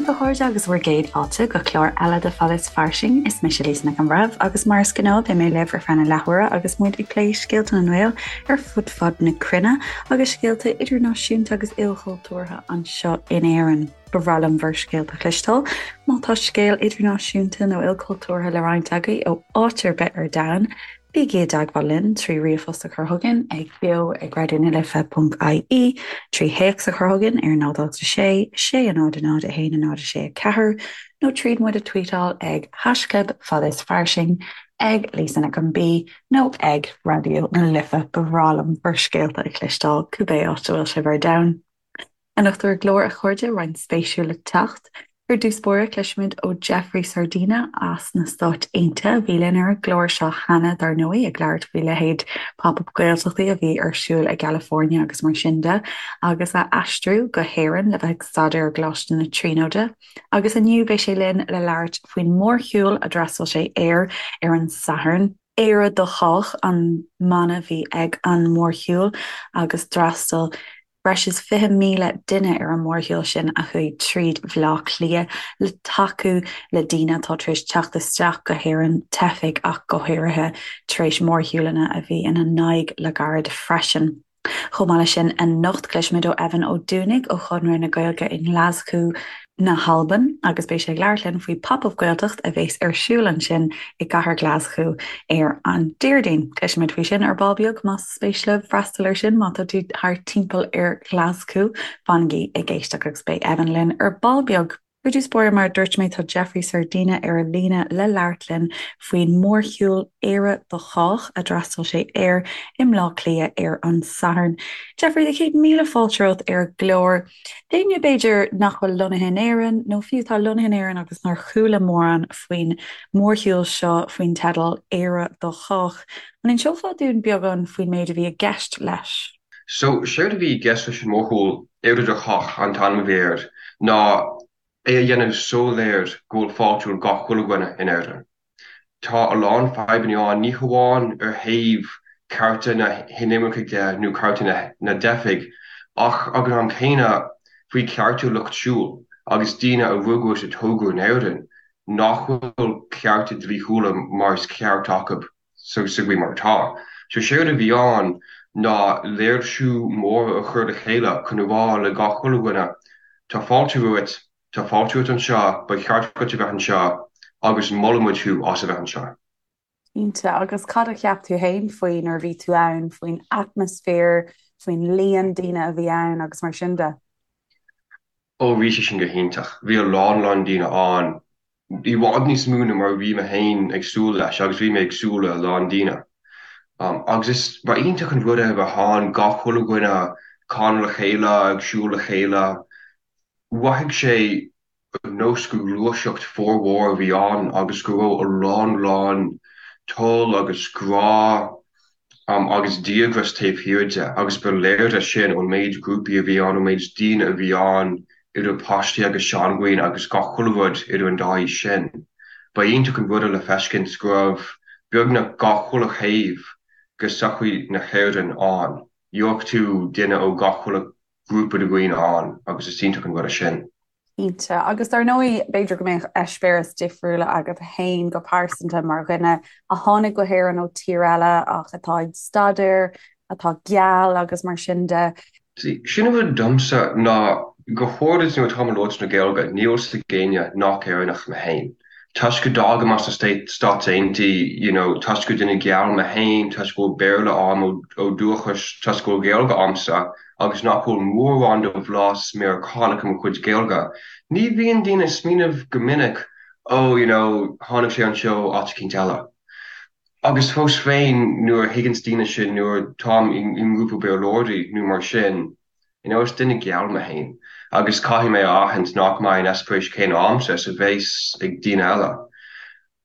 daoibh a chairde agus bhur gcéad fáilte go clár eile de Fada is Fairsing. Is mise Lisa Nic an Bhreithimh agus mar is gnáth beidh mé libh ar feadh na leathuaire agus muid ag plé scéalta na nGael ar fud fad na cruinne agus scéalta idirnáisiúnta agus ilchultúrtha anseo in Éirinn. Ba bhreá liom bhur scéalta a chloisteáil. Má tá scéal idirnáisiúnta nó ilchultúrtha le roinnt agaibh ó áit ar bith ar domhan, Bígí i dteagmháil linn trí ríomhphost a chur chugainn ag beo ag raidió na life ponc ie, trí théacs a chur chugainn ar 0 8 6 6 0 0 1 0 6 4 nó tríd muid a tweetáil ag haischlib fada is fairsing, ag Lisa Nic an B nó ag Raidió na Life. Ba bhreá liom bhur scéalta a chloisteáil, cibé áit a bhfuil sibh ar domhan. Anocht ar an gclár, a chairde, roinnt spéisiúil le teacht. Ar dtús báire, cloisfimid ó Jeffrey Sardina as na Stáit Aontaithe, a bhí linn ar an gclár seo cheana, dar ndóigh, ag labhairt faoi leithéid Pop-Up Gaeltachtaí a bhí ar siúl i gCalifornia agus mar sin de, agus a aistriú go hÉirinn le bheith ag staidéar i gColáiste na Tríonóide. Agus inniu beidh sé linn le labhairt faoin mórshiúl a d'fhreastail sé air ar an Satharn. Éire do Chách an mana a bhí ag an mórshiúl agus d'fhreastail breis is 20,000 duine ar an mórshiúl sin a chuaigh tríd Bhaile Átha Cliath le tacú le daoine atá tar éis teacht isteach go hÉirinn, teifigh ach go háirithe, tar éis mórshiúlanna a bhí ina n-aghaidh le gairid freisin. Chomh maith leis sin, anocht cloisfimid ó Evan Ó Dúnaigh ó Chonradh na Gaeilge i nGlaschú na hAlban agus beidh sé ag labhairt linn faoi Pop Up Gaeltacht a bheas ar siúl ansin i gcathair Ghlaschú ar an Déardaoin. Cloisfimid faoi sin ar ball beag más spéis libh freastal air sin má tá tú thart timpeall ar Ghlaschú, fanaigí ag éisteacht agus beidh Evan linn ar ball beag. Ar dtús báire, mar a dúirt mé, tá Jeffrey Sardina ar an líne le labhairt linn faoin mórshiúl Éire do Chách a d'fhreastail sé air i mBleá Cliath ar an Satharn. Jeffrey, do chéad míle fáilte romhat ar an gclár. D'éinne, b'fhéidir, nach bhfuil lonnaithe in Éirinn, nó fiú atá lonnaithe in Éirinn agus nár chuala mórán faoin mórshiúl seo faoin teideal 'Éire do Chách', an inseofá dúinn beagán faoin méid a bhí i gceist leis? So, séard a bhí i gceist leis an mórshiúl 'Éire do Chách' an t-ainm a bhí air, ná é a dhéanamh soiléir go bhfuil fáilte roimh gach chuile dhuine in Éirinn. Tá a lán fadhbanna ann, ní hamháin ar thaobh cearta na hinimircigh de nó cearta na dteifigh, ach ag an am céanna faoi chearta lucht siúil agus daoine a rugadh is a tógadh in Éirinn nach bhfuil cearta dlíthiúla mar is ceart acu sa gcaoi mar atá. So séard a bhí ann ná léirsiú mór a chur le chéile chun a rá le gach chuile dhuine, tá fáilte romhat, Tá fáilte romhat anseo, ba cheart duit a bheith anseo agus molaimid thú as a bheith anseo. Cinnte. Agus cad a cheap tú féin faoi nuair a bhí tú ann, faoin atmaisféar, faoin líon daoine a bhí ann agus mar sin de? Ó, bhí sé sin go hiontach. Bhí a lán lán daoine ann, i bhfad níos mó ná mar a bhí mé féin ag súil leis agus bhí mé ag súil le a lán daoine. Agus is, ba iontach an rud é a bheith ann, gach chuile dhuine ag canadh le chéile, ag siúl le chéile. Mhothaigh sé ar nós gur gluaiseacht formhór a bhí ann agus go raibh a lán lán toil agus grá agus díograis taobh thiar de agus ba léir é sin ón méid grúpaí a bhí ann, ón méid daoine a bhí ann, idir páistí agus seandhaoine agus gach chuile rud idir an dá aois sin. Ba iontach an rud é le feiscint go raibh beagnach gach chuile thaobh de sochaí na hÉireann ann. Gheobhadh tú duine ó gach chuile grúpa de dhaoine ann agus is iontach an rud é sin. Cinnte. Agus dar ndóigh, b'fhéidir go mbeadh eispéireas difriúla agat féin go pearsanta mar dhuine a tháinig go hÉirinn ó tír eile ach atá ag staidéar, atá geal agus mar sin de. See, sin an rud domsa ná go háirid nuair atáim ag labhairt na Gaeilge, níl a fhios ag éinne nach Éireannach mé féin. Toisc go dtagaim as na Stáit Aontaithe, you know, toisc gur duine geal mé féin, toisc go bhfuil Béarla a'm ó dúchas, toisc go bhfuil Gaeilge a'msa agus nach bhfuil mórán de bhlas Meiriceánach i mo chuid Gaeilge, ní bhíonn daoine ag smaoineamh go minic, oh, you know, tháinig sé anseo ó áit eicínt eile. Agus fós féin, nuair a thuigeanns daoine sin, nuair táim i ngrúpa Béarlóirí nó mar sin, You know, is duine geal mé féin agus caithfidh mé a aithint nach mbeidh an eispéireas céanna a'msa is a bheas ag daoine eile.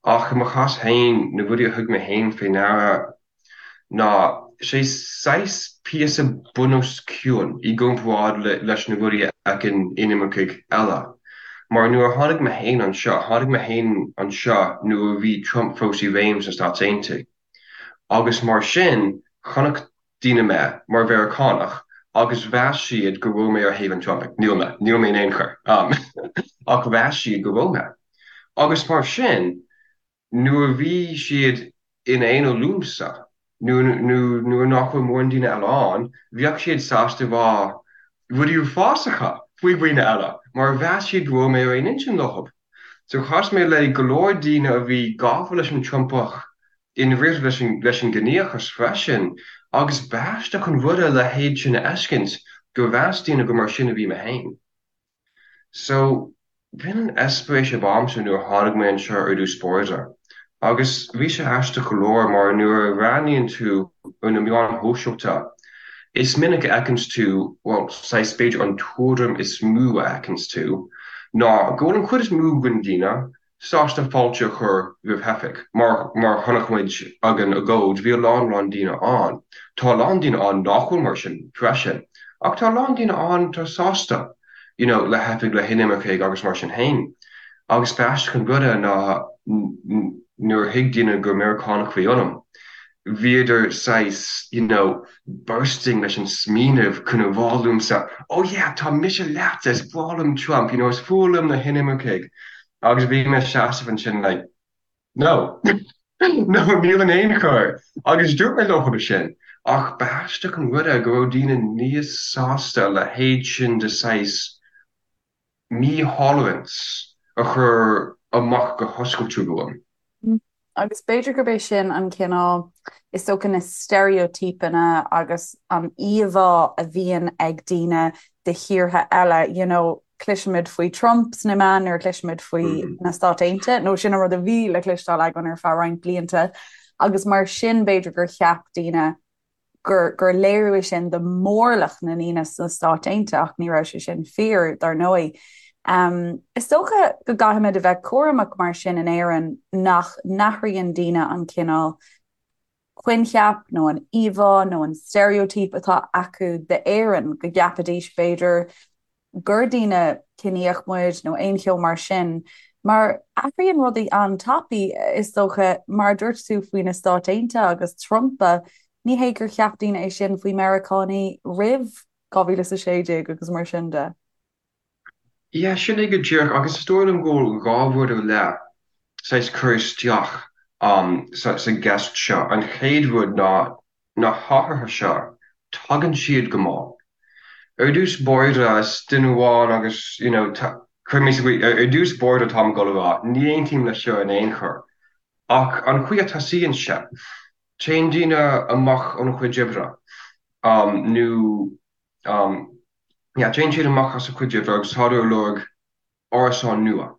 Ach i mo chás féin, na rudaí a thug mé féin fé ndeara ná sé saghas píosa bunoscionn i gcomparáid leis na rudaí a fheiceann inimircigh eile. Mar nuair a tháinig mé féin anseo, tháinig mé féin anseo nuair a bhí Trump fós i réim sna Stáit Aontaithe. Agus mar sin, chonaic daoine mé mar Mheiriceánach agus mheas siad go raibh mé ar thaobh an Trumpaigh. Níl mé. Níl mé in aon chor. Ach mheas siad go raibh mé. Agus mar sin, nuair a bhí siad in aonar liomsa, nó nuair nach raibh mórán daoine eile ann, bheadh siad sásta rá rudaí uafásacha faoi dhaoine eile, mar mheas siad go raibh mé ar aon intinn leo. So chas mé le go leor daoine a bhí gafa leis an Trumpach i ndáiríre leis an leis an gciníochas freisin, agus b'aisteach an rud é a leithéid sin a fheiscint, gur mheas daoine gur mar sin a bhí mé féin. So, b'in an eispéireas ab a'msa nuair a tháinig mé anseo ar dtús báire. Agus bhí sé aisteach go leor mar nuair a bhreathnaíonn tú ar na meáin shóisialta, is minic a fheiceanns tú, bhuel, saghas b'fhéidir an tuairim is mó a fheiceanns tú ná go bhfuil an chuid is mó den daoine sásta fáilte a chur roimh theifigh. Mar mar chonaic muid ag an agóid, bhí a lán lán daoine ann. Tá a lán daoine ann nach bhfuil mar sin freisin. Ach tá a lán daoine ann atá sásta you know le theifigh, le hinimircigh agus mar sin féin. Agus b'aisteach an rud é ná nuair a thuig daoine gur Meiriceánach a bhí ionam, bhíodar saghas you know bursting leis an smaoineamh chun a rá liomsa oh yeah tá mise leatsa, is breá liom Trump, you know is fuath liom na hinimircigh. Agus bhí mé seasamh ansin like no, no níl in aon chor. Agus dúirt mé leo sin. Ach b'aisteach an rud é go raibh daoine níos sásta a leithéid sin de saghas mí-tolerance a chur amach go hoscailte romham. Agus b'fhéidir gurb é sin an cineál, is dócha, na steiréitípeanna agus an íomhá a bhíonn ag daoine de thíortha eile, you know, cloisimid faoi Trump sna meáin nuair a chloisimid faoi na Stáit Aontaithe, nó sin an rud a bhí le cloisteáil againn ar feadh roinnt blianta, agus mar sin b'fhéidir gur cheap daoine gur gur léiriú é sin de mhórlach na ndaoine sna Stáit Aontaithe ach ní raibh sé sin fíor, dar ndóigh. Is dócha go gcaithfimid a bheith cúramach mar sin in Éirinn nach n-athraíonn daoine an cineál coincheap nó an íomhá nó an steiréitíp atá acu d'Éirinn, go gceapfaidís b'fhéidir gur daoine ciníoch muid nó aon cheo mar sin, mar athraíonn rudaí an-tapaidh, is dócha, mar a dúirt tú faoi na Stáit Aontaithe agus Trumpa, ní hé gur cheap daoine é sin faoi Meiriceánaigh roimh 2016 agus mar sin de. Yeah, sin é go díreach, agus is dóigh liom go bhfuil 2 rud ar leith saghas cur isteach sa gceist seo. An chéad rud ná na hathruithe seo, tagann siad go mall. Ar dtús báire, is duine amháin agus, you know, cuir mé sa gcaoi, ar dtús báire táim ag dul a rá, ní aontaím leis seo in aon chor. Ach an chaoi a tosaíonn sé, téann daoine amach óna chuid oibre, nó, yeah, téann siad amach as a chuid oibre agus tádar ag lorg árasán nua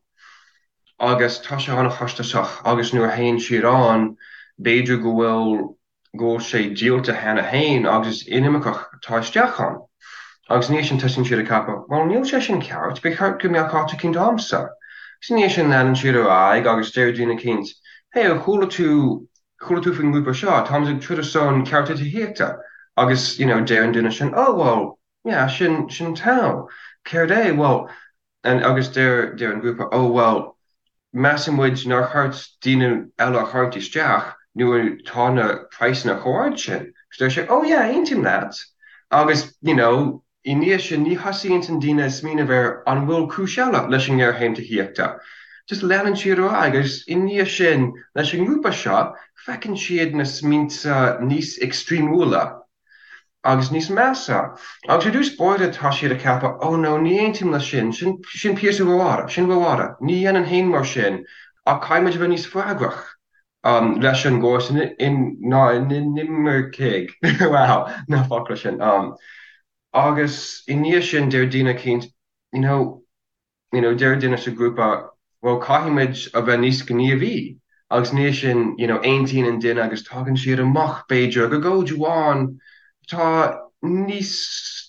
agus tá sé an-chostasach agus nuair a théann siad ann b'fhéidir go bhfuil go bhfuil sé díolta cheana féin agus is inimirceach atá isteach ann. Agus ina dhiaidh sin tosaíonn siad ag ceapadh, bhuel níl sé sin ceart, ba cheart go mbeadh áit eicínt a'msa. Agus ina dhiaidh sin leanann siad ar aghaidh agus deir daoine eicínt, hey ar chuala tú chuala tú faoin ngrúpa seo, táimid ag troid ar son cearta tithíochta agus you know deir an duine sin, oh well yeah sin sin togha, céard é, bhuel And agus deir deir an grúpa, oh well, measann muid nár cheart daoine eile a tharraingt isteach nuair atá na praghsanna chomh ard sin. Agus deir sé, oh yeah, aontaím leat. Agus, you know, i ndiaidh sin ní thosaíonn an daoine ag smaoineamh ar an bhfuil cúis eile leis an ngéarchéim tithíochta. Just leanann siad ar aghaidh agus i ndiaidh sin leis an ngrúpa seo feiceann siad na smaointe níos extremeúla agus níos measa. Agus ar dtús báire tá siad ag ceapadh, oh no, ní aontaím leis sin, sin, sin píosa rófhada, sin rófhada, ní dhéanfainn féin mar sin, ach caithfidh muid a bheith níos freagrach um, leis an gcóras in, in, na n-inimircigh, wow, na focla sin. Um, agus i ndiaidh sin deir daoine eicínt, you know, you know, deir duine sa ghrúpa, bhuel, caithfidh muid a bheith níos gníomhaí agus ina dhiaidh sin, you know, aontaíonn an duine agus tagann siad amach, b'fhéidir, ag agóid amháin atá níos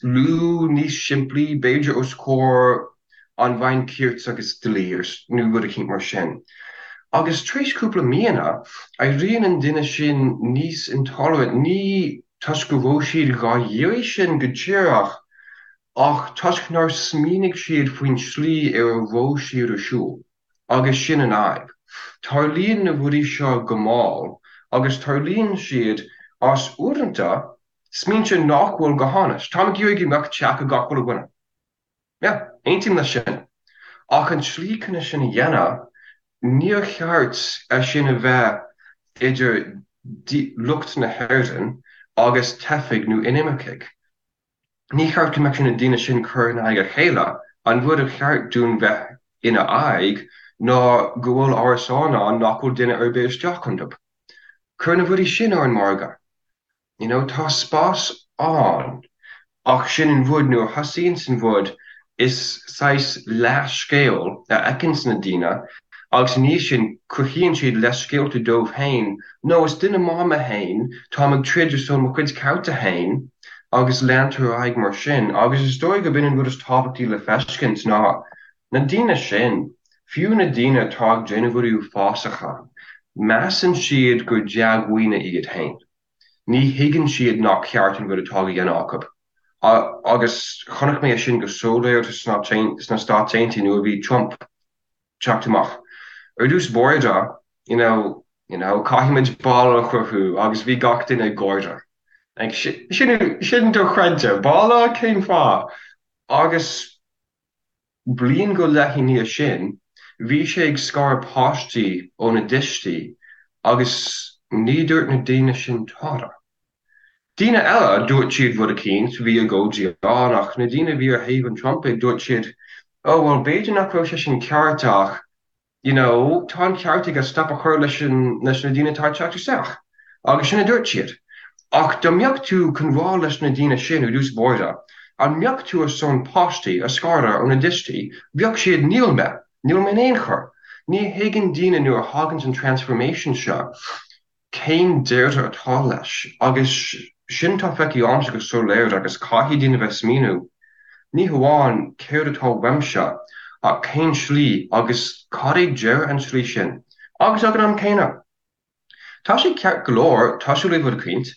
lú, níos simplí, b'fhéidir, os comhair an Roinn Cirt agus Dlí nó rud eicínt mar sin. Agus tar éis cúpla míonna, éiríonn an duine sin níos intolerant, ní toisc go raibh siad dhá iarraidh sin go díreach, Ach toisc nár smaoinigh siad faoin tslí ar a raibh siad ar siúl. Agus sin an fhadhb. Tarlaíonn na rudaí seo go mall agus tarlaíonn siad as, uaireanta, smaointe nach bhfuil go hainnis. Táim ag iarraidh go mbeadh teach ag gach uile dhuine. Yeah, aontaím leis sin. Ach an tslí chun é sin a dhéanamh, níor cheart é sin a bheith idir lucht na hÉireann agus teifigh nó inimircigh. Ní cheart go mbeadh na daoine sin curtha in aghaidh a chéile. An rud a cheart dúinn bheith ina aghaidh ná go bhfuil árasáin ann nach bhfuil duine ar bith isteach iontu. Cuir na rudaí sin ar an margadh. You know, tá spás ann. Ach sin an rud, nuair a thosaíonns an rud, is saghas leathscéal a fheiceanns na daoine agus i ndiaidh sin cruthaíonn siad leithscéalta dóibh féin, no, is duine maith mé féin, táim ag troid ar son mo chuid cearta féin agus leantar ar aghaidh mar sin. Agus is dóigh gurb in an rud is tábhachtaí le feiscint ná na daoine sin, fiú na daoine atá ag déanamh rudaí uafásacha, measann siad gur dea-dhaoine iad féin. Ní thuigeann siad nach ceart an rud atá á dhéanamh acu. Agus chonaic mé é sin go soiléir sna Stáit Aontaithe nuair a bhí Trump teacht amach. Ar dtús báire, you know, you know, caithfimid balla a chruthú agus bhí gach duine ag gáire. Like, sin, sin dochreidte, balla? Cén fáth? Agus bliain go leith i ndiaidh sin, bhí sé ag scaradh páistí óna dtuistí agus ní dúirt na daoine sin tada. Daoine eile, dúirt siad rud eicínt, bhí agóidí ann, ach na daoine a bhí ar thaobh an Trumpaigh, dúirt siad, oh well b'fhéidir nach raibh sé sin ceart ach, you know, tá an ceart aige stop a chur leis an, leis na daoine atá ag teacht isteach. Agus sin a dúirt siad. Ach dá mbeadh tú chun rá leis na daoine sin ar dtús báire, an mbeadh tú ar son páistí a scaradh óna dtuistí, bheadh siad níl mé, níl mé in aon chor. Ní thuigeann daoine nuair a thaganns an transformation seo, cén deireadh atá leis? Agus sin atá feicthe agamsa go soiléir agus caithfidh daoine bheith smaoineamh, ní hamháin céard atá uaimse ach cén slí agus cad é deireadh an tslí sin? Agus ag an am céanna, tá sé ceart go leor tosú le rud eicínt,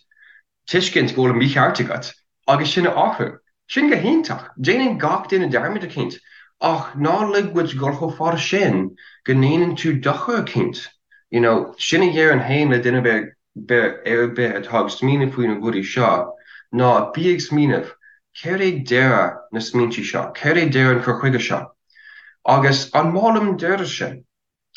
tuiscint go bhfuil an mícheart agat agus sin a athrú. Sin go hiontach. Déanann gach duine dearmad eicínt. Ach ná lig duit dul chomh fada sin go ndéanann tú dochar eicínt. You know, sin a dhéarfainn féin le duine ar bith atá ag smaoineamh faoi na rudaí seo ná bí ag smaoineamh, céard é deireadh na smaointe seo? Céard é deireadh an cur chuige seo? Agus an maith liom an deireadh sin?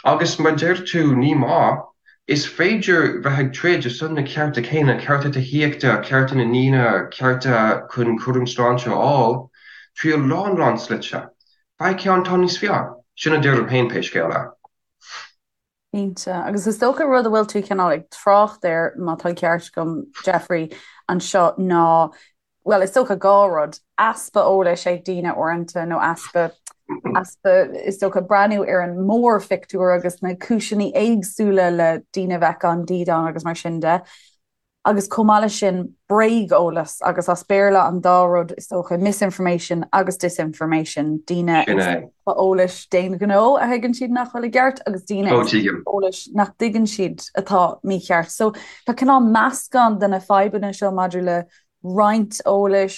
Agus mar deir tú, ní maith. Is féidir bheith ag troid ar son na cearta céanna, cearta tithíochta, cearta na ndaoine, cearta chun cúram sláinte a fháil, trí a lán lán slite. Faigh ceann atá níos fearr. Sin a deirim féin pé scéal é. Cinnte. Agus is dócha rud a bhfuil tú cineál ag trácht air, má tá an ceart agam, Jeffrey, anseo ná bhuel, is dócha 2 rud, easpa eolais ag daoine uaireanta nó easpa, easpa, is dócha, breathnú ar an mórphictiúr agus na cúiseanna éagsúla le daoine a bheith gan dídean agus mar sin de. Agus chomh maith leis sin, bréageolas agus as Béarla an dá rud, is dócha, misinformation agus disinformation, daoine ag scaipeadh eolais d'aon ghnó a thuigeann siad nach bhfuil i gceart agus daoine ag scaipeadh eolais nach dtuigeann siad atá mícheart. So tá cineál meascán de na fadhbanna seo maidir le roinnt eolais,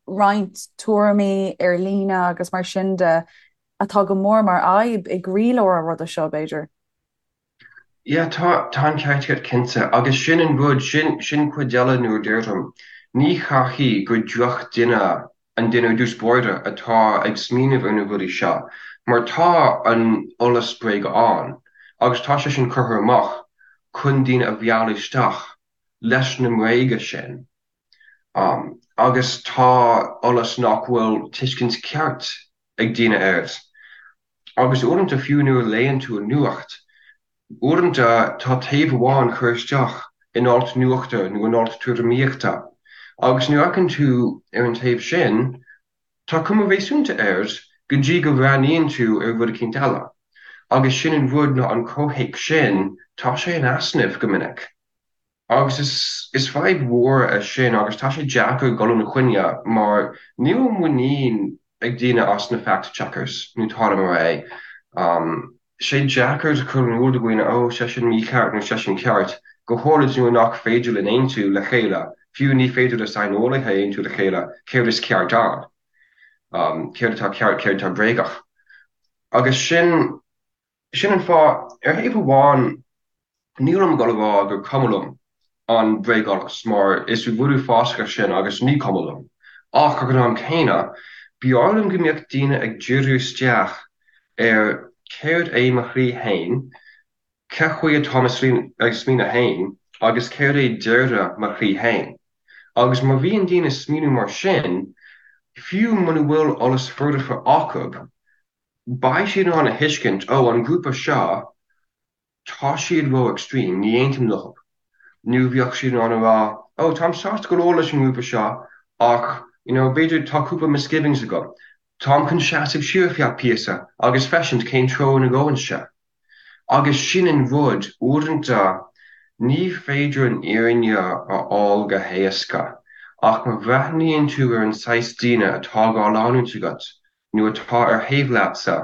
roinnt tuairimí ar líne agus mar sin de atá go mór mar fhadhb i gcroílár an ruda seo, b'fhéidir. Yeah, tá, tá an ceart agat cinnte. Agus sin an rud, sin, sin cuid eile nuair a deirim, ní chaithfidh gur drochdhuine an duine ar dtús báire atá ag smaoineamh ar na rudaí seo, mar tá an eolas bréige ann agus tá sé sin curtha amach chun daoine a mhealladh isteach. leis na mbréaga sin agus tá eolas nach bhfuil tuiscint ceart ag daoine air. Agus uaireanta fiú nuair a léann tú an nuacht, uaireanta tá taobh amháin curtha isteach in alt nuachta nó in alt tuairimíochta agus nuair a fheiceann tú ar an taobh sin, tá cuma réasúnta air go dtí go bhreathnaíonn tú ar rud eicínt eile. Agus sin an rud ná an comhthéacs sin, tá sé in easnamh go minic. Agus is is fadhb mhór é sin agus tá sé deacair dul ina choinne mar níl muinín ag daoine as na fact checkers nó tada mar é. Sé deacair cur in iúl do dhaoine oh sé sin mícheart nó sé sin ceart, go háirid nuair nach féidir linn aontú le chéile, fiú ní féidir le saineolaithe aontú le chéile céard is ceart ann, céard atá ceart, céard atá bréagach. Agus sin. Sin an fáth, ar thaobh amháin, nílim ag dul a rá gur cuma liom an bréageolas, mar is rud uafásach é sin agus ní cuma liom. Ach, ag an am céanna, b'fhearr liom go mbeadh daoine ag díriú isteach ar céard é mo shlí fhéin, ce chaoi atáim ag smaoineamh fhéin agus céard é deireadh mo shlí fhéin. Agus má bhíonn daoine ag smaoineamh mar sin, fiú muna bhfuil eolas foirfe acu, beidh siad in ann a thuiscint, ó, an grúpa seo, tá siad ró extreme, ní aontaím leo. Nó bheadh siad in ann a rá, oh, táim sásta go leor leis an ngrúpa seo ach, you know, b'fhéidir tá cúpla misgivings agam. Táim chun seasamh siar feadh píosa agus feiscint cén treo ina ngabhann sé. Agus sin an rud, uaireanta ní féidir an fhírinne a fháil go héasca, ach má bhreathnaíonn tú ar an saghas daoine atá á leanúint agat, nó atá ar thaobh leatsa,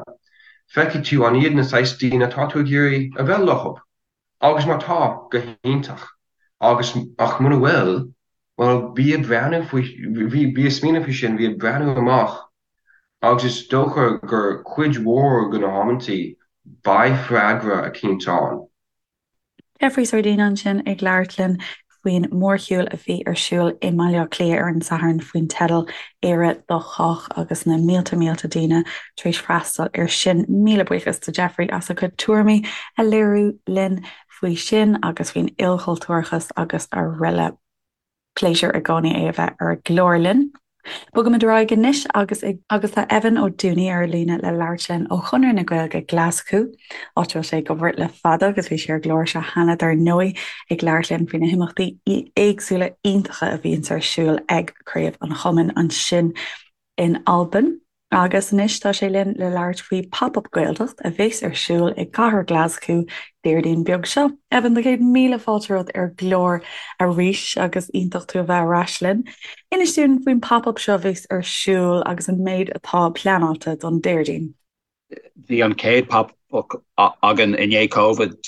feicfidh tú an iad na saghas daoine atá tú ag iarraidh a bheith leo. Agus má tá, go hiontach. Agus, ach muna bhfuil, bhuel, bí ag breathnú faoi, bí ag smaoineamh faoi sin, bí ag breathnú amach agus is dócha gur cuid mhór de na hamantaí, beidh freagra eicínt ann. Jeffrey Sardina ansin ag labhairt linn faoin mórshiúl a bhí ar siúl i mBaile Átha Cliath ar an Satharn faoin teideal 'Éire do Chách' agus na mílte mílte daoine tar éis freastal air sin. Míle buíochas do Jeffrey as a chuid tuairimí a léiriú linn faoi sin agus faoin ilchultúrachas agus araile. Pléisiúr i gcónaí é a bheith ar an gclár linn. Bogaimid ar aghaidh anois agus agus tá Evan Ó Dúnaí ar an líne le labhairt linn ó Chonradh na Gaeilge Glaschú, áit a bhfuil sé ag obair le fada agus bhí sé ar an gclár seo cheana dar ndóigh ag labhairt linn faoi na himeachtaí éagsúla iontacha a bhíonns ar siúl ag Craobh an Chumainn ansin in Albain. Agus anois tá sé linn le labhairt faoi Pop Up Gaeltacht a bheas ar siúl i gcathair Ghlaschú Déardaoin beag seo. Evan, do chéad míle fáilte romhat ar an gclár arís agus iontach tú a bheith ar ais linn. Inis dúinn faoin Pop Up seo a bheas ar siúl agus an méid atá pleanáilte don Déardaoin. Bhí an chéad Pop Up againn i ndiaidh Covid,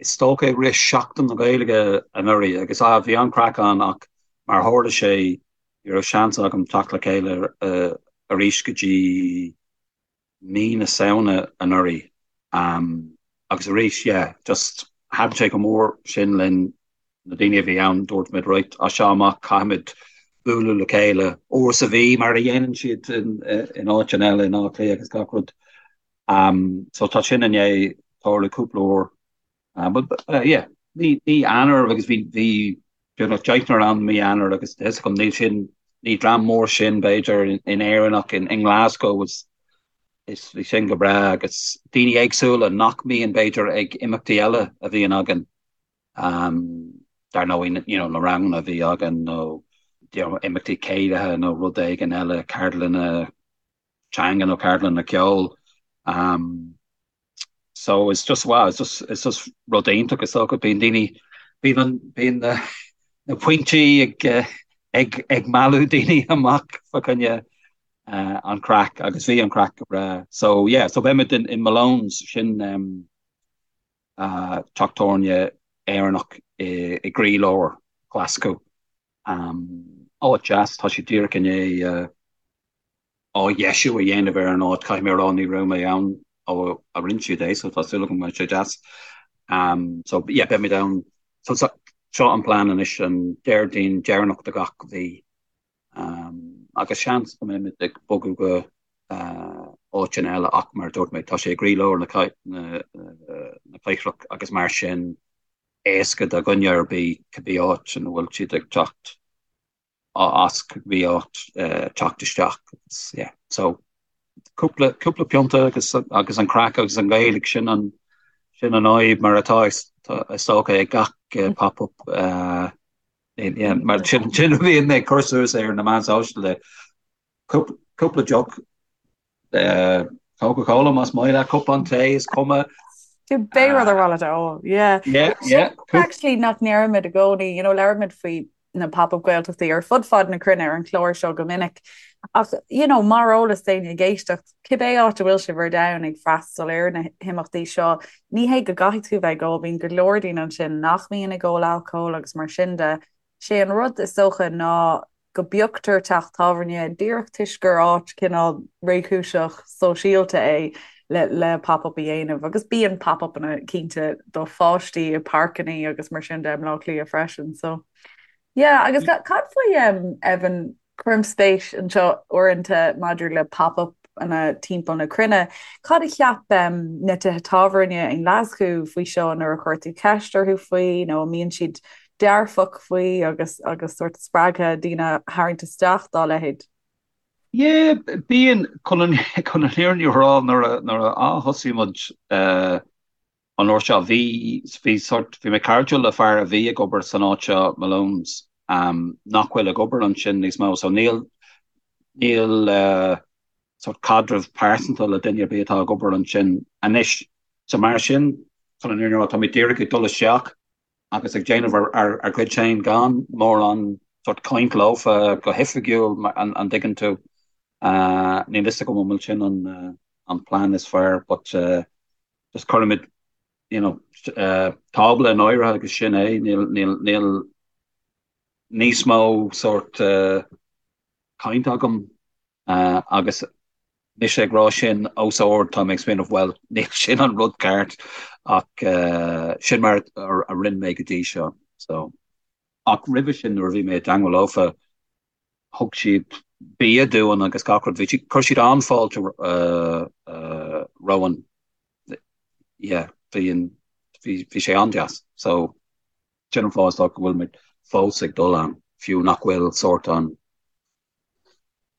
is dócha i rith Seachtain na Gaeilge anuraidh agus bhí an-chraic ann ach mar a tharla sé Ní raibh seans agam teacht le chéile arís go dtí mí na Samhna anuraidh. Agus arís, yeah, just thaitin sé go mór sin linn, na daoine a bhí ann, dúirt muid, right, as seo amach caithfimid bualadh le chéile uair sa mhí mar a dhéanann siad in áiteanna eile in Áth Cliath agus gach rud. So tá sin i ndiaidh tarlú cúpla uair. But yeah, mí Eanáir agus bhí bhí beagnach deichniúr ann mí Eanáir agus tá a fhios agam níl sin ní dream mór sin b'fhéidir in Éirinn ach in nGlasgow is is bhí sin go breá agus daoine éagsúla nach mbíonn b'fhéidir ag imeachtaí eile a bhíonn againn. Um, dar ndóigh you know, na ranganna a bhí againn nó you know, imeachtaí céilithe nó rud éigin eile, ceardlanna teanga nó ceardlanna ceoil. Um, So it's just wow, it's just it's just rud iontach is dócha bíonn daoine bíonn an bíonn na na pointí ag ag ag mealladh daoine amach fa choinne uh, an craic agus bhí an craic go breá. So yeah, so beimid in, in Malone's sin um, uh, teach tábhairne Éireannach i, i gcroílár Glasgow. Um, áit deas, tá sé díreach i ndiaidh uh, athdheisiú a dhéanamh ar an áit. Caithfidh mé a rá ní raibh mé ann ó a rinne siad é so tá súil agam go mbeidh sé deas. So yeah beimid ann. So seo an plean anois an Déardaoin deireanach de gach mhí. Agus seans go mbeimid ag bogadh go áiteanna eile ach mar a dúirt mé tá sé i gcroílár na cathrach agus mar sin éasca do dhuine ar bith cibé áit ina bhfuil siad ag teacht. as cibé áit teacht isteach agus yeah so cúpla cúpla pionta agus agus an craic agus an Ghaeilge sin an sin an fhadhb mar atá is dócha ag gach pop up yeah mar sin sin a bhíonn ag cur suas ar na meáin sóisialta Cúpla deoch Coca-Cola más maith leat, cupán tae is cuma. Cibé rud ar mhaith leat a ól, yeah. Yeah, yeah. Actually nach ndeirimid i gcónaí, you know, labhraímid faoi na pop-up Gaeltachtaí ar fud fad na cruinne ar an chlár seo go minic. Ach, you know, mar eolas d'éinne ag éisteacht, cibé áit a bhfuil sibh ar domhan ag freastal ar na himeachtaí seo, ní hé go gcaithfidh tú bheith ag ól, bíonn go leor daoine ansin nach mbíonn ag ól alcóil agus mar sin de. Sé an rud is dócha ná go bpioctar teach tábhairne díreach toisc gur áit cineál réchúiseach sóisialta é le le pop-up a dhéanamh agus bíonn pop-upanna cinnte do pháistí i páirceanna agus mar sin de i mBleá Cliath freisin so yeah agus cad faoi um, Evan cuirim spéis anseo uaireanta maidir le pop-up. pop-upanna timpeall na cruinne. Cad a cheap na tithe tábhairne i nGlaschú faoi seo nuair a chuir tú ceist orthu faoi nó an mbíonn siad dearfach faoi agus agus sórt spreagtha daoine a tharraingt isteach dá leithéid? Yeah, bíonn, chun an chun an fhírinne a rá nuair a nuair a thosaigh muid an uair seo bhí bhí sort bhí mé cairdiúil le fear a bhí ag obair san áit seo Malone's nach bhfuil ag obair ansin níos mó so níl níl sort caidreamh pearsanta le duine ar bith atá ag obair ansin anois. So mar sin, chun an fhírinne a rá, tá mé díreach ag dul isteach agus ag déanamh ár gcuid féin gan mórán sort caint leofa go hoifigiúil, an dtuigeann tú. Níl fhios agam an bhfuil sin an plean is fearr but just cuirimid you know tábla in áirithe agus sin é, níl níl níl níos mó sort caint agam agus mise ag rá sin os ard tá mé ag smaoineamh bhuel níl sin an rud ceart ach sin mar a rinne mé go dtí seo so ach roimhe sin nuair a bhí mé i dteangmháil leofa thug siad bia dúinn agus gach rud bhí siad chuir siad an-fháilte romhainn yeah bhí an bhí bhí sé an-deas so sin an fáth is dócha go bhfuil muid fós ag dul ann fiú nach bhfuil sórt an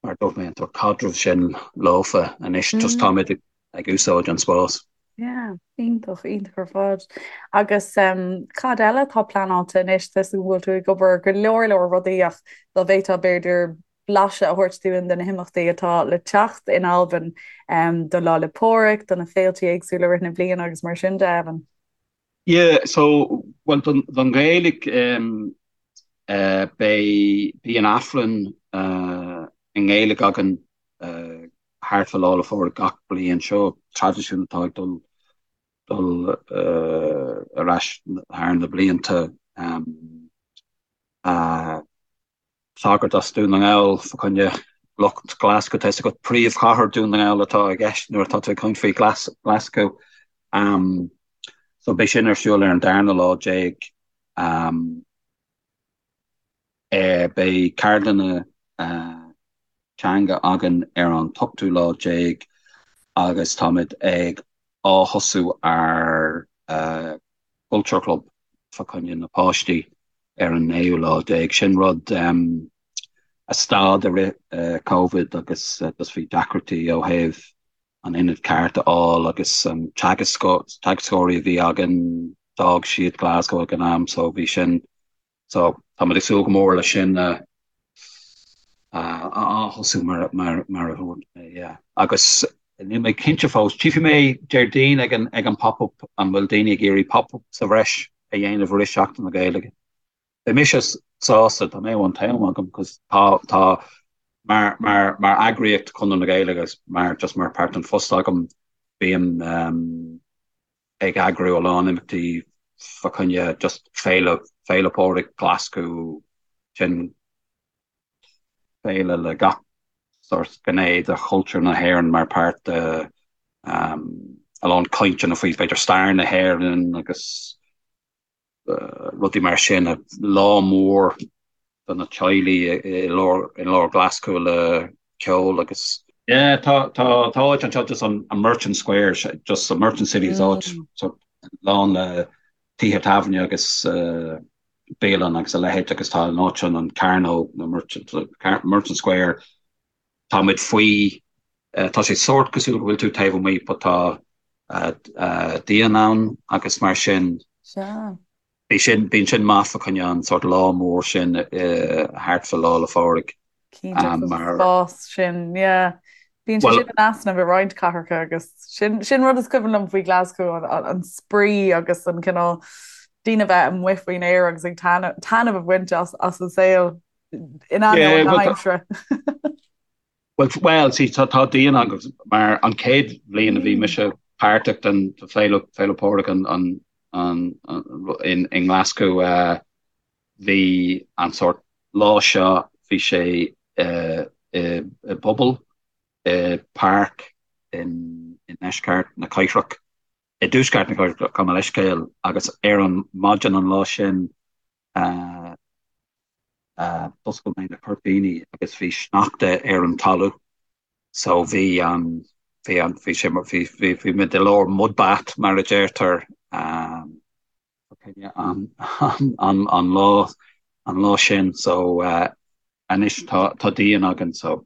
mar a dúirt mé, an sórt caidreamh sin leofa anois, just táimid ag úsáid an spás. Yeah, iontach, iontach ar fad. Agus cad eile atá pleanáilte anois? Tá a fhios agam go bhfuil tú ag obair ar go leor leor rudaí ach dá bhféadfá b'fhéidir blaiseadh a thabhairt dúinn de na himeachtaí atá le teacht in Albain do Lá 'le Pádraig, do na féiltí éagsúla i rith na bliana agus mar sin de, Evan. Yeah, so, bhuel, don, don Ghaeilge, um, eh, beidh, bíonn Aifreann, eh, i nGaeilge againn, eh, thart fá Lá 'le Phádraig gach bliain. Seo traidisiún atá ag dul, dul, eh, ar ais thar na blianta. Um, eh, Sagart as Dún na nGall fa choinne lucht Glasgow. Tá 'fhios agat príomhchathair Dún na nGall atá i gceist nuair atá tú ag caint faoi Glasgow. So beidh sin ar siúl ar an darna lá déag. Beidh ceardlanna teanga againn ar an t-ochtú lá déag agus táimid ag ath-thosú ár Culture Club fa choinne na páistí ar an naoú lá déag. Sin rud a stad i rith Covid agus just bhí deacrachtaí ó thaobh an ionad ceart a fháil agus an teagascóirí a bhí againn, d'fhág siad Glasgow ag an am so bhí sin So táimid ag súil go mór leis sin a ath-thosú mar a dúirt mé, yeah. Agus níl mé cinnte fós, tchífidh mé Déardaoin ag an ag an pop-up an bhfuil daoine ag iarraidh pop-up sa bhreis a dhéanamh i rith Seachtain na Gaeilge. Beidh mise sásta dá mbeadh an t-am agam cos tá tá mar mar mar eagraíocht Chonradh na Gaeilge agus mar just mar páirt den phost agam bím um, ag eagrú a lán imeachtaí fa choinne just Féile, Féile Pádraig Ghlaschú, sin féile le gach sórt gné de chultúr na hÉireann mar páirt de a lán cainteanna faoi b'fhéidir stair na hÉireann agus rudaí mar sin, lá mór do na teaghlaigh i lár i lár Ghlaschú le ceol agus. Yeah, tá tá tá áit anseo just an an Merchant Square, just an Merchant City is áit so lán le tithe tábhairne agus bialann agus a leithéid agus tá an áit sin an Cearnóg nó Merchant Merchant Square Tá muid faoi, tá sé sórt cosúil go bhfuil tú taobh amuigh but tá díon ann agus mar sin Sea. bhí sin, bíonn sin maith fa choinne an sórt lá mór sin thart fa Lá 'le Phádraig. Cinnte, an spás sin, yeah. Bíonn sé sin in easnamh i roinnt cathracha agus sin, sin rud is cuimhin liom faoi Glasgow, an, an spraoi agus an cineál daoine bheith amuigh faoin aer agus ag taitneamh a bhaint as, as an saol. In ainneoin na haimsire. Well, well, see, tá tá díon agus mar an chéad bhliain a bhí mise páirteach den Féile Féile Pádraig an an an in in nGlaschú uh, bhí an sórt lá seo bhí sé uh, i i bpuball i páirc in i ndeisceart na cathrach i dtuaisceart na cathrach gabh mo leithscéal agus ar an maidin an lá sin uh, D'oscail mé na cuirtíní agus bhí sneachta ar an talamh. So bhí an, bhí an, bhí sé, bhí, bhí, bhí muid i lár mud bath mar a deirtear an, an, an lá, an lá sin. So anois tá, tá díon againn so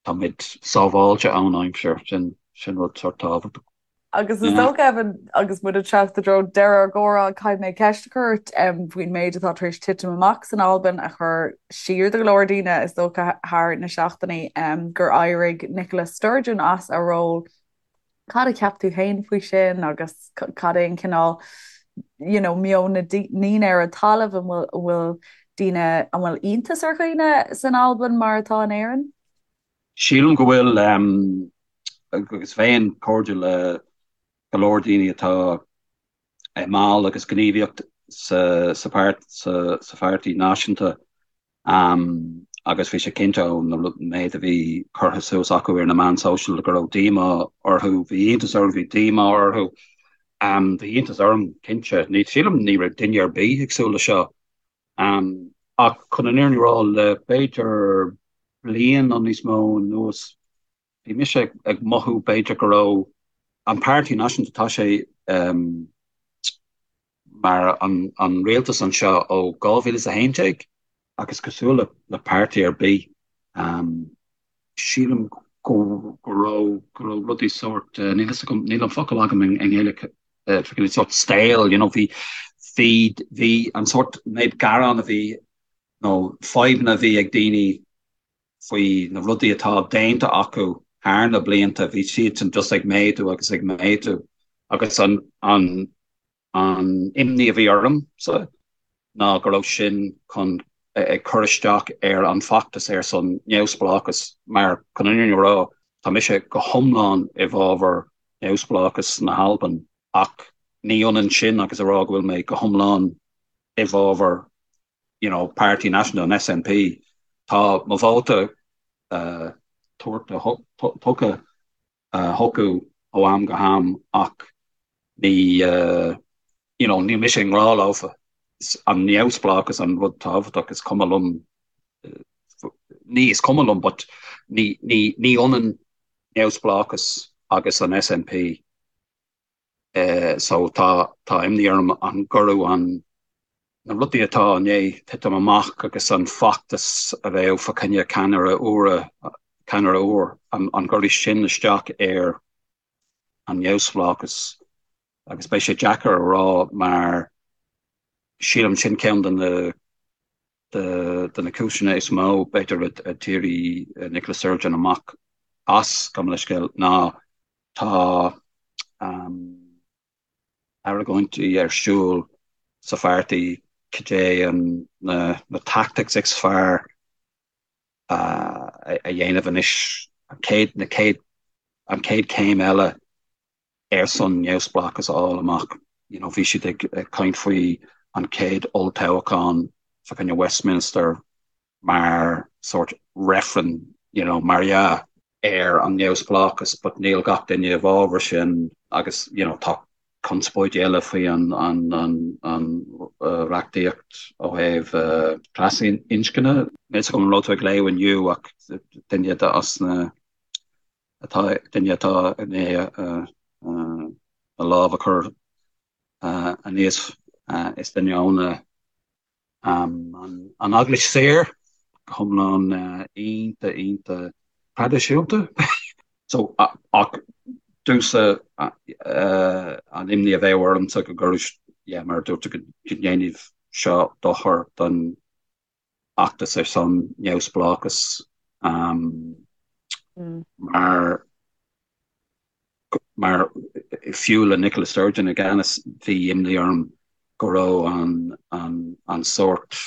tá muid sábháilte ón aimsir, sin, sin rud sort tábhachtach. Agus is dócha, Evan, agus muid ag teacht i dtreo deireadh ár gcomhrá, caithfidh mé ceist a chur ort faoin méid atá tar éis titim amach san Albain a chuir siar do go leor daoine, is dócha, thar na seachtainí, gur éirigh Nicola Sturgeon as a ról. Cad a cheap tú féin faoi sin agus cad é an cineál you know, meon na ndaoine ar an talamh, an bhfuil daoine, an bhfuil iontas ar dhaoine san Albain mar atá in Éirinn? Sílim go bhfuil, agus bheinn cairdiúil le go leor daoine atá i mball agus gníomhaíocht sa pháirtí náisiúnta agus bhí sé cinnte ón méid a bhí curtha suas acu ar na meáin sóisialta go raibh díomá orthu, bhí iontas orthu, bhí díomá orthu. Bhí iontas orm, cinnte. Sílim ní raibh duine ar bith ag súil le seo. Ach chun an fhírinne a rá, le b'fhéidir bliain nó níos mó anuas, bhí mise ag mothú b'fhéidir go raibh an Páirtí Náisiúnta, tá sé mar an rialtas anseo ó 2011 agus cosúil le páirtí ar bith, sílim go raibh go raibh rudaí sórt, níl fhios agam, níl an focal agam i nGaeilge, sórt stale, you know, bhí bhí bhí an sórt méid gearán a bhí nó fadhbanna a bhí ag daoine faoi na rudaí atá déanta acu thar na blianta, bhí siadsan just ag méadú agus ag méadú agus an an An imní a bhí ormsa ná go raibh sin chun ag cur isteach ar an bhfeachtas ar son neamhspleáchas mar, chun an fhírinne a rá, tá mise go hiomlán i bhfabhar neamhspleáchas na hAlban ach ní ionann sin agus a rá go bhfuil mé go hiomlán i bhfabhar you know, Páirtí Náisiúnta an SNP. Tá mo vóta tabhartha, tugtha chucu ó am go ham ach ní you know níl mise i ngrá leofa. Is an neamhspleáchas an rud tábhachtach, is cuma liom, ní is cuma liom but ní ní ní ionann neamhspleáchas agus an SNP. So tá tá imní orm an gcuirfeadh an na rudaí atá i ndiaidh titim amach agus an feachtas a bheadh fá choinne ceannaire úr ceannaire úr an an gcuirfidh sin isteach ar an neamhspleáchas agus beidh sé deacair a rá mar sílim sin ceann de na de na cúiseanna is mó b'fhéidir a d'éirigh Nicola Sturgeon amach as, gabh mo leithscéal, ná Tá argóintí ar siúl sa pháirtí cad é na tactics is fearr a dhéanamh anois, an chéad, na chéad, an chéad chéim eile ar son neamhspleáchas a fháil amach. You know, bhí siad ag caint faoi an chéad olltoghchán fá choinne Westminster mar sórt reifreann, you know, mar dhea, ar an neamhspleáchas but níl gach duine i bhfabhar sin agus you know tá conspóidí eile faoi an an an an reachtaíocht ó thaobh trasinscne. Níl fhios agam an raibh tú ag léamh inniu ach duine de as na atá duine atá i ndiaidh a lámh a chur aníos is duine óna An Eaglais Saor, go hiomlán iontach iontach traidisiúnta. So, ach domhsa an imní a bheadh ormsa go gcuirfeadh, yeah, mar a dúirt tú, go ndéanfaidh seo dochar don fheachtas ar son neamhspleáchas mar Mar fiú le Nicola Sturgeon i gceannas, bhí imní orm go raibh an sórt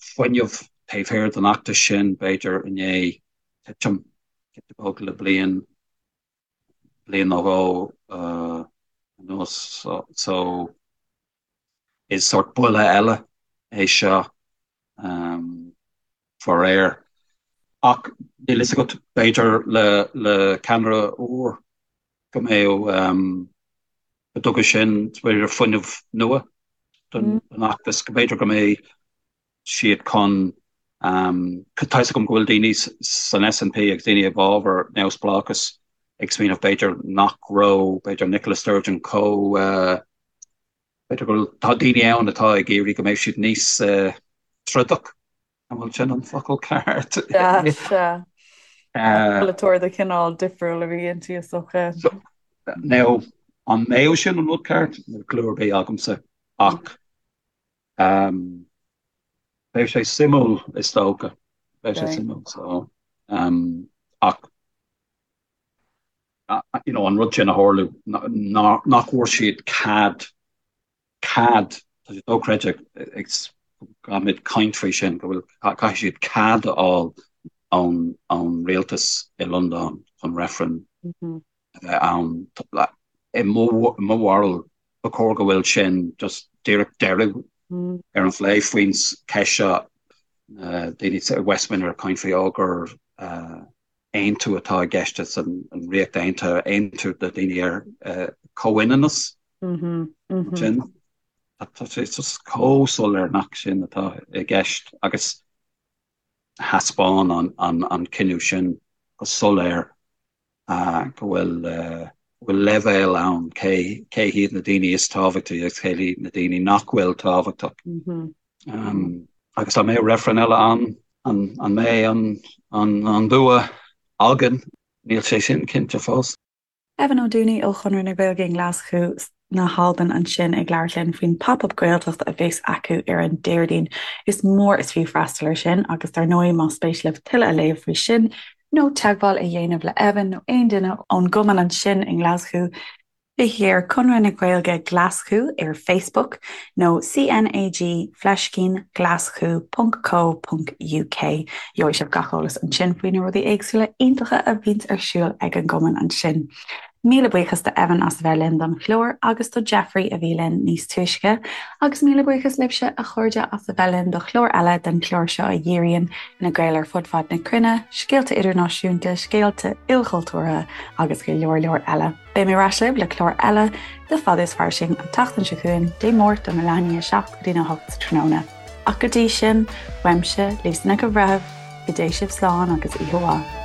fuinneamh taobh thiar den fheachtas sin, b'fhéidir, i ndiaidh titim giota beag le bliain, bliain nó dhó anuas. So is sórt buille eile é seo. Faraor. Ach níl fhios agat, b'fhéidir le le ceannaire úr go mbeadh, go dtugfaidh sin b'fhéidir fuinneamh nua don fheachtas, go mb'fhéidir go mbeidh siad chun. Tá fhios agam go bhfuil daoine san SNP agus daoine i bhfabhar neamhspleáchas ag smaoineamh b'fhéidir nach raibh b'fhéidir Nicola Sturgeon chomh b'fhéidir go bhfuil tá daoine ann atá ag iarraidh go mbeidh siad níos trodach an bhfuil sin an focal ceart? Sea, sea. Polaiteoir de chineál difriúil a bhí inti is dócha. Now, an mbeadh sin an rud ceart? Níl clue ar bith agamsa ach Beidh sé suimiúil is dócha. Beidh sé suimiúil so ach you know an rud sin a tharlú nach bhfuair siad cead cead tá sé dochreidte ag caithfimid caint faoi sin go bhfuil caithfidh siad cead a fháil ón ón rialtas i Londain chun reifreann a bheith ann. I mo bharúil, ba chóir go bhfuil sin just díreach deireadh ar an phlé faoin cheist seo. Daoine i Westminster ag caint faoi ó gur aontú atá i gceist san Ríocht Aontaithe, aontú do daoine ar comhionannas. Sin tá sé just chomh soiléir nach sin atá i gceist agus thaispeáin an cinneadh sin go soiléir go bhfuil bhfuil leibhéal ann cé cé hiad na daoine is tábhachtaí agus cé hiad na daoine nach bhfuil tábhachtach. Agus dá mbeadh reifreann eile ann, an an mbeidh an an an bua againn? Níl sé sin cinnte fós. Evan Ó Dúnaí ó Chonradh na Gaeilge i nGlaschú na hAlban ansin ag labhairt linn faoin Pop Up Gaeltacht a bheas acu ar an Déardaoin. Is mór is fiú freastal air sin agus dar ndóigh más spéis libh tuilleadh a léamh faoi sin nó teagmháil a dhéanamh le Evan nó aon duine ón gcumann ansin i nGlaschú, Téigí ar Conradh na Gaeilge Glaschú ar Facebook nó CNAG fleiscín glaschú ponc co ponc uk. Gheobhaidh sibh gach eolas ansin faoi na rudaí éagsúla iontacha a bhíonns ar siúl ag an gcumann ansin. Míle buíochas do Evan as a bheith linn don chlár agus do Jeffrey a bhí linn níos túisce. Agus míle buíochas libhse, a chairde, as a bheith linn do chlár eile den chlár seo a dhíríonn ar na Gaeil ar fud fad na cruinne, scéalta idirnáisiúnta, scéalta ilchultúrtha agus go leor leor eile. Beidh mé ar ais libh le clár eile de Fada is Fairsing an tseachtain seo chugainn, Dé Máirt óna leath i ndiaidh a 7 go dtí a 8 sa tráthnóna. Ach go dtí sin, uaimse, Lisa Nic an Bhreithimh, go dté sibh slán agus oíche mhaith.